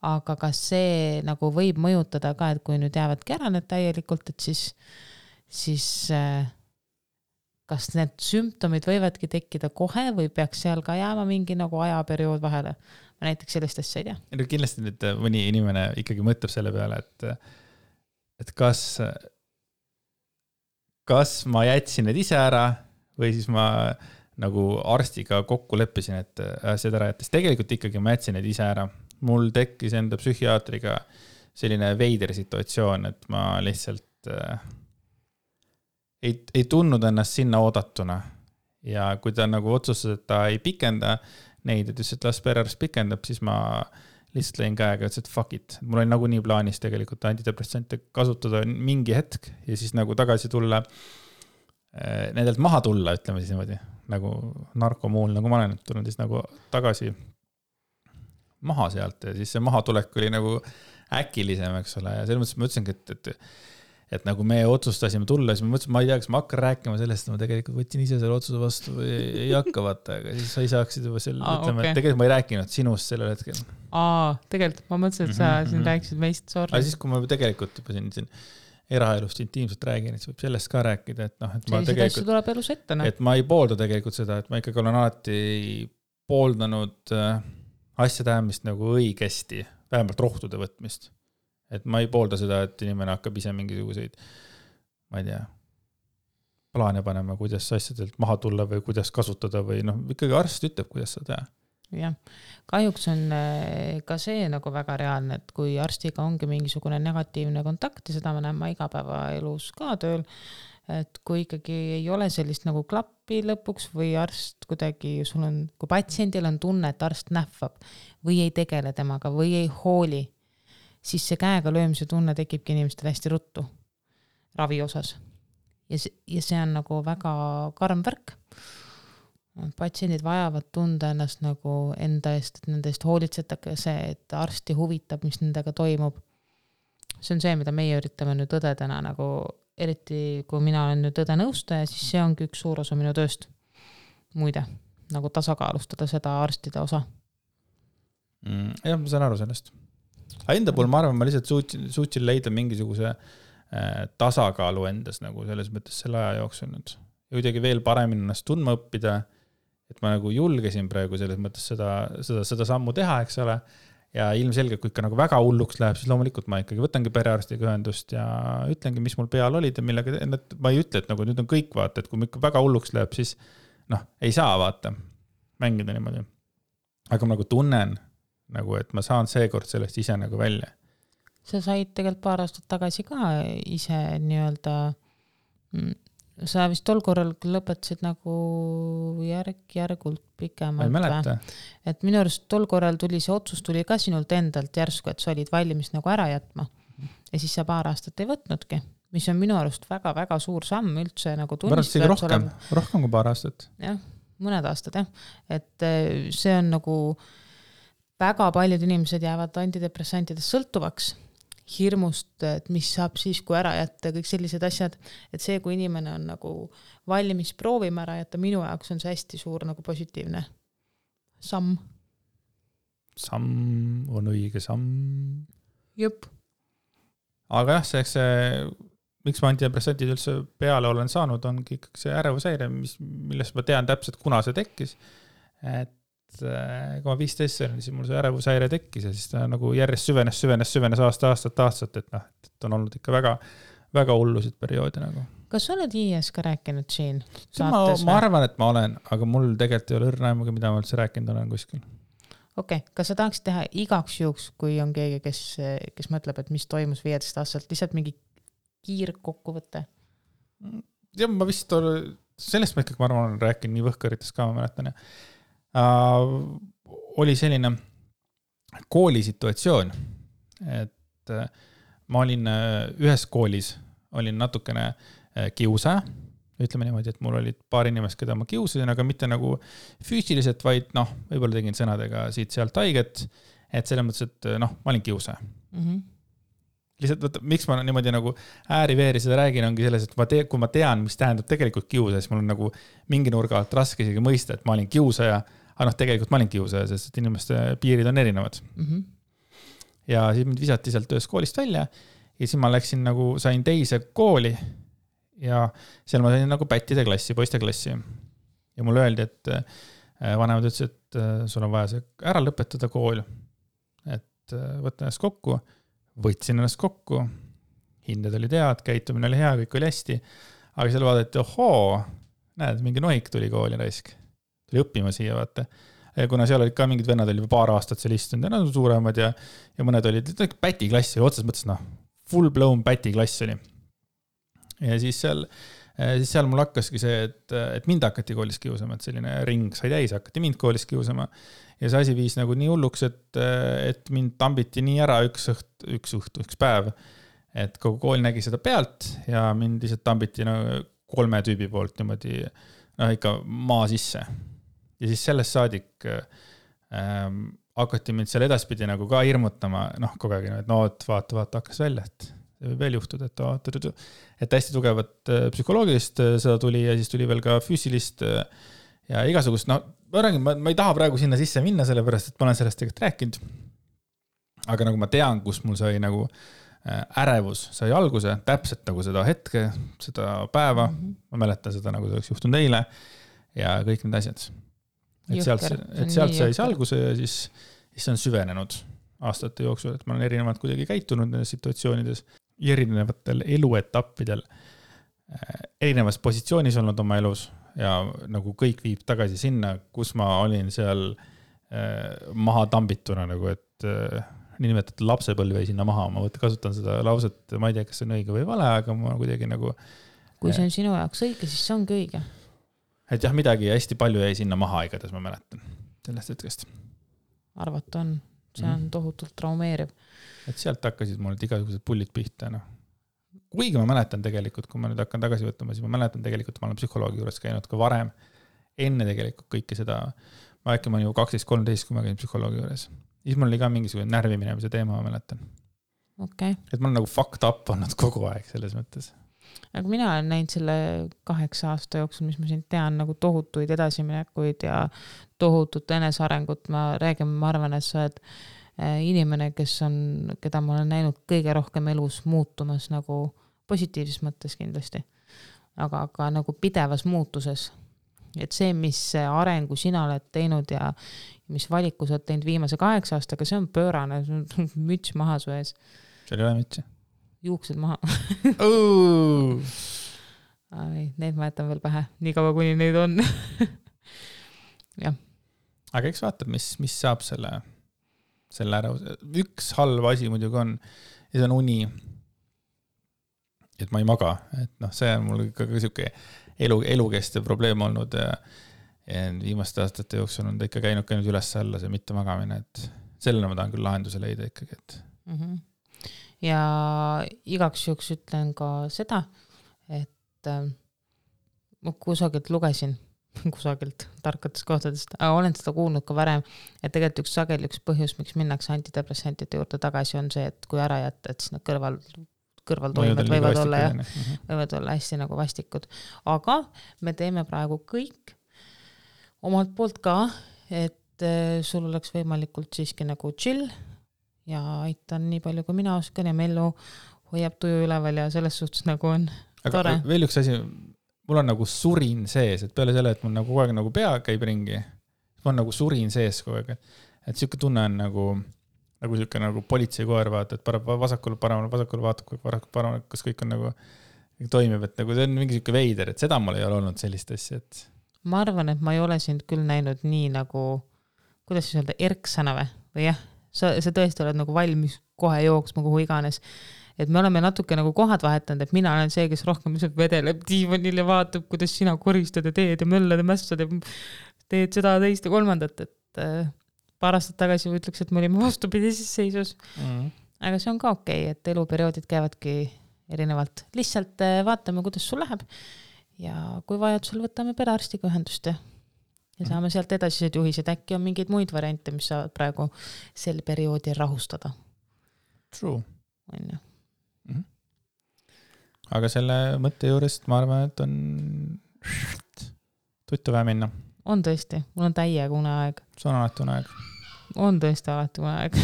Aga kas see nagu võib mõjutada ka, et kui nüüd jäävadki ära need täielikult, et siis kas need sümptomid võivadki tekkida kohe või peaks seal ka jääma mingi nagu ajaperiood vahele? Ma näiteks sellist asja ei tea. Kindlasti nüüd mõni inimene ikkagi mõtleb selle peale, et kas ma jätsin need ise ära või siis ma nagu arstiga kokku leppisin, et seda ära jättes. Tegelikult ikkagi ma jätsin need ise ära. Mul tekkis enda psühhiaatriga selline veider situatsioon, et ma lihtsalt ei tundnud ennast sinna oodatuna ja kui ta nagu otsustas, et ta ei pikenda neid, et ütles, et las perearst pikendab, siis ma lihtsalt lõin käega ja ütles, et fuck it. Mul oli nagu nii plaanis tegelikult antidepressante kasutada mingi hetk ja siis nagu tagasi tulla, nendelt maha tulla, ütleme siis niimoodi, nagu narkomuul, nagu ma olen tulnud siis nagu tagasi maha sealt ja siis see mahatulek oli nagu äkilisem, eks ole, ja selles mõttes ma ütlesingi, et nagu me otsustasime tulla, siis ma mõtlesin, ma ei tea, kas ma hakkan rääkima sellest, ma tegelikult võtsin ise selle otsuse vastu või ei hakka vaata, aga siis sa ei saaksid juba selle, ütleme, et tegelikult ma ei rääkinud sinust sellel hetkel. Tegelikult, ma mõtlesin, et sa siin rääkisid meist, sorry. Aga siis, kui ma tegelikult juba siin eraelust intiimselt räägin, et võib sellest ka rääkida, et et ma tegelikult, tuleb elus ette, et ma ei poolda tegelikult seda, et ma ikkagi olen alati pooldanud asjade ajamist nagu õigesti, vähemalt rohtude võtmist. Et ma ei poolda seda, et inimene hakkab ise mingisuguseid, ma ei tea, plaane panema, kuidas asjadelt maha tulla või kuidas kasutada või ikkagi arst ütleb, kuidas seda teha. Jah, kahjuks on ka see nagu väga reaalne, et kui arstiga ongi mingisugune negatiivne kontakt ja seda ma näen ma igapäevaelus ka tööl, et kui ikkagi ei ole sellist nagu klappi lõpuks või arst kuidagi, kui patsiendil on tunne, et arst nähvab või ei tegele temaga või ei hooli, siis see käega löömise tunne tekibki inimestel hästi ruttu ravi osas. Ja see on nagu väga karm värk. Patsiendid vajavad tunda ennast nagu enda eest, et nende eest hoolitsetage see, et arsti huvitab, mis nendega toimub. See on see, mida meie üritame nüüd õdedena nagu, eriti kui mina olen nüüd õde nõustaja, siis see ongi üks suur osa minu tööst. Muide, nagu tasakaalustada seda arstide osa. Jah, ma saan aru sellest. Enda puhul ma arvan, ma lihtsalt suutsin leida mingisuguse tasakaalu endas nagu selles mõttes selle aja jooksul nüüd. Ja kuidagi veel paremini ennast tundma õppida, et ma nagu julgesin praegu selles mõttes seda sammu teha, eks ole. Ja ilmselgelt, kui ikka nagu väga hulluks läheb, siis loomulikult ma ikkagi võtangi perearstiga ühendust ja ütlengi, mis mul peal olid ja millega, ma ei ütle, et nagu nüüd on kõik vaata, et kui ikka väga hulluks läheb, siis ei saa vaata mängida niimoodi. Aga ma nagu tunnen, nagu, et ma saan seekord sellest ise nagu välja. Sa said tegelikult paar aastat tagasi ka ise nii-öelda, sa vist tol korral lõpetasid nagu järgult pikemalt. Ma ei mäleta. Et minu arust tol korral tuli see otsus tuli ka sinult endalt järsku, et sa olid valmis nagu ära jätma. Ja siis sa paar aastat ei võtnudki, mis on minu arust väga-väga suur samm üldse nagu tunnistada. Rohkem kui paar aastat. Jah, mõned aastad jah. Et see on nagu väga paljud inimesed jäävad antidepressantidest sõltuvaks hirmust, et mis saab siis, kui ära jätta, kõik sellised asjad, et see, kui inimene on nagu valmis proovima ära jätta, minu jaoks on see hästi suur nagu positiivne samm. Samm on õige samm. Jõpp. Aga jah, miks ma antidepressantid üldse peale olen saanud, ongi ikkagi see ärevushäire, millest ma tean täpselt, kuna see tekkis. Et kui ma 15 olin, siis mul see ärevushäire tekkis ja siis ta nagu järjest süvenes aastat, et on olnud ikka väga, väga hullusid perioodi nagu. Kas sa oled IS ka rääkinud siin? Ma arvan, et ma olen, aga mul tegelikult ei ole õrnaimuga, mida ma üldse rääkinud olen kuskil. Okei, kas sa tahaksid teha igaks juhuks, kui on keegi, kes mõtleb, et mis toimus 15 aastalt, lihtsalt mingi kiirkokkuvõte? Ja ma vist sellest ma ikkagi, ma arvan, olen rääkinud nii võhkarites ka, ma mäletan ja oli selline koolisituatsioon, et ma olin ühes koolis, olin natukene kiusaja, ütleme niimoodi, et mul olid paar inimest, keda ma kiusasin, aga mitte nagu füüsiliselt, vaid võib-olla tegin sõnadega siit-sealt haiget, et selles mõttes, et ma olin kiusaja. Lihtsalt, miks ma niimoodi nagu ääri-veeri seda räägin, ongi selles, et kui ma tean, mis tähendab tegelikult kiusaja, siis mul on nagu mingi nurga alt raske isegi mõista, et ma olin kiusaja, aga tegelikult ma olin kiusaja, sest inimeste piirid on erinevad. Ja siis mind visati sealt ühest koolist välja ja siis ma läksin nagu, sain teise kooli ja seal ma sain nagu pättide klassi, poiste klassi. Ja mulle öeldi, et vanemad ütles, et sul on vaja see ära lõpetada kool, et võtta ennast kokku. Võtsin ennast kokku, hinded oli head, käitumine oli hea, kõik oli hästi, aga seal vaadati, näed, mingi nohik tuli kooli raisk. Tuli õppima siia, vaata. Ja kuna seal olid ka mingid vennad, oli paar aastat seal istunud ja nad on suuremad ja mõned olid pätiklass, otses mõttes, full blown pätiklass oli. Ja siis seal mul hakkaski see, et mind hakati koolis kiusama, et selline ring sai täis, hakati mind koolis kiusama. Ja see asi viis nagu nii hulluks, et mind tambiti nii ära üks päev, et kogu kool nägi seda pealt ja mind lihtsalt tambiti 3 tüübi poolt niimoodi ikka maa sisse. Ja siis sellest saadik hakati mind seal edaspidi nagu ka hirmutama, kogu aeg, et vaata, hakkas välja, et see võib veel juhtuda, et hästi tugevat psühholoogilist seda tuli ja siis tuli veel ka füüsilist ja igasugust, ma ei taha praegu sinna sisse minna, sellepärast, et ma olen sellest tegelikult rääkinud. Aga nagu ma tean, kus mul sai nagu ärevus sai alguse, täpselt nagu seda hetke, seda päeva, ma mäletan seda, nagu see oleks juhtunud eile ja kõik need asjad. Et sealt sai alguse ja siis see on süvenenud aastate jooksul, et ma olen erinevalt kuidagi käitunud nendes situatsioonides, erinevatel eluetappidel, erinevas positsioonis olnud oma elus ja nagu kõik viib tagasi sinna, kus ma olin seal maha tambituna, nagu et niinimetatud lapsepõlv jäi sinna maha, ma kasutan seda lauset, ma ei tea, kas see on õige või vale, aga ma kuidagi nagu kui see on sinu jaoks õige, siis see ongi õige. Et jah, midagi hästi palju jäi sinna maha igatahes, ma mäletan sellest hetkest. Arvata on, see on tohutult traumeeriv. Et sealt hakkasid mul igasugused pullid pihta. No. Kuigi ma mäletan tegelikult, kui ma nüüd hakkan tagasi võtma, siis ma mäletan tegelikult, ma olen psühholoogi juures käinud ka varem, enne tegelikult kõike seda, ma äkki ma olen ju 12-13, kui ma käin psühholoogi juures. Siis mul oli ka mingisugune närviminemise teema, ma mäletan. Okay. Et ma olen nagu fucked up olnud kogu aeg selles mõttes. Aga mina olen näinud selle 8 aasta jooksul, mis ma siin tean, nagu tohutuid edasiminekuid ja tohutut enesarengut. Ma arvan, et sa oled inimene, keda ma olen näinud kõige rohkem elus muutumas nagu positiivses mõttes kindlasti. Aga nagu pidevas muutuses. Et see, mis arengu sina oled teinud ja mis valiku sa oled teinud viimase 8 aastaga, see on pöörane, müts maha su ees. Seal ei ole mütsi. Juuksed maha. Need ma jätan veel pähe, nii kaua kuni neid on. Ja. Aga eks vaatab, mis saab selle ära. Üks halb asi muidugi on, ja see on uni, et ma ei maga. Et see on mul ikka siuke elukestev probleem olnud ja viimaste aastate jooksul on ta ikka käinud üles-alla see mitte magamine, et sellele ma tahan küll lahenduse leida ikkagi, et ja igaks juhuks ütlen ka seda, et ma kusagilt lugesin, tarkatest kohtadest, aga olen seda kuulnud ka varem, et tegelikult üks põhjus, miks minnakse antidepressantide juurde tagasi, on see, et kui ära jätta, et siis nad kõrvaltoimed võivad olla hästi nagu vastikud. Aga me teeme praegu kõik omalt poolt ka, et sul oleks võimalikult siiski nagu chill ja aitan nii palju, kui mina oskan ja Mellu hoiab tuju üleval ja selles suhtes nagu on tore. Aga veel üks asi, mul on nagu surin sees, et peale selle, et mul nagu kogu aeg nagu pea käib ringi, mul on nagu surin sees kogu aeg, et siuke tunne on nagu siuke nagu politseikoer vaata, et vasakule vaatab, kas kõik on nagu toimib, et nagu see on mingi siuke veider, et seda mul ei ole olnud sellist asja, et ma arvan, et ma ei ole sind küll näinud nii nagu, kuidas siis öelda, erksana või jah, sa tõesti oled nagu valmis kohe jooksma kuhu iganes. Et me oleme natuke nagu kohad vahetanud, et mina olen see, kes rohkem vedeleb diivanil ja vaatab, kuidas sina koristad ja teed ja möllad ja mässad ja teed seda teist ja kolmandat, et paar aastat tagasi ütleks, et me olime vastupidises seisus. Aga see on ka okei, et eluperioodid käivadki erinevalt. Lihtsalt vaatame, kuidas sul läheb ja kui vajadusel võtame perearstiga ühendust ja saame sealt edasised juhised. Äkki on mingeid muid variante, mis saavad praegu sel perioodil rahustada. True. On ju. Aga selle mõtte juurest ma arvan, et on tuttu vähe minna. On tõesti, mul on täiega uneaeg. See on alati uneaeg. On tõesti alati uneaeg.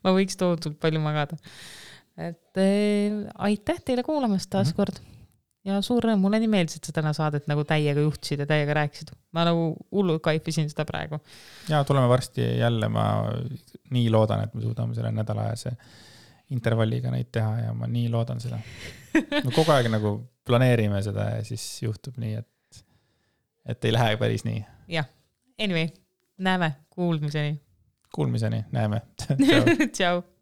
Ma võiks tohutult palju magada. Et aitäh teile kuulamast taas kord. Ja suur rõõm, mulle nii meeldis, et sa täna saadet nagu täiega juhtisid ja täiega rääkisid. Ma nagu hullu kaifisin seda praegu. Ja tuleme varsti jälle, ma nii loodan, et me suudame selle nädala ajase intervalliga neid teha ja ma nii loodan seda. Me kogu aeg nagu planeerime seda ja siis juhtub nii, et ei lähe päris nii. Jah, anyway, näeme, kuulmiseni. Näeme. Tšau.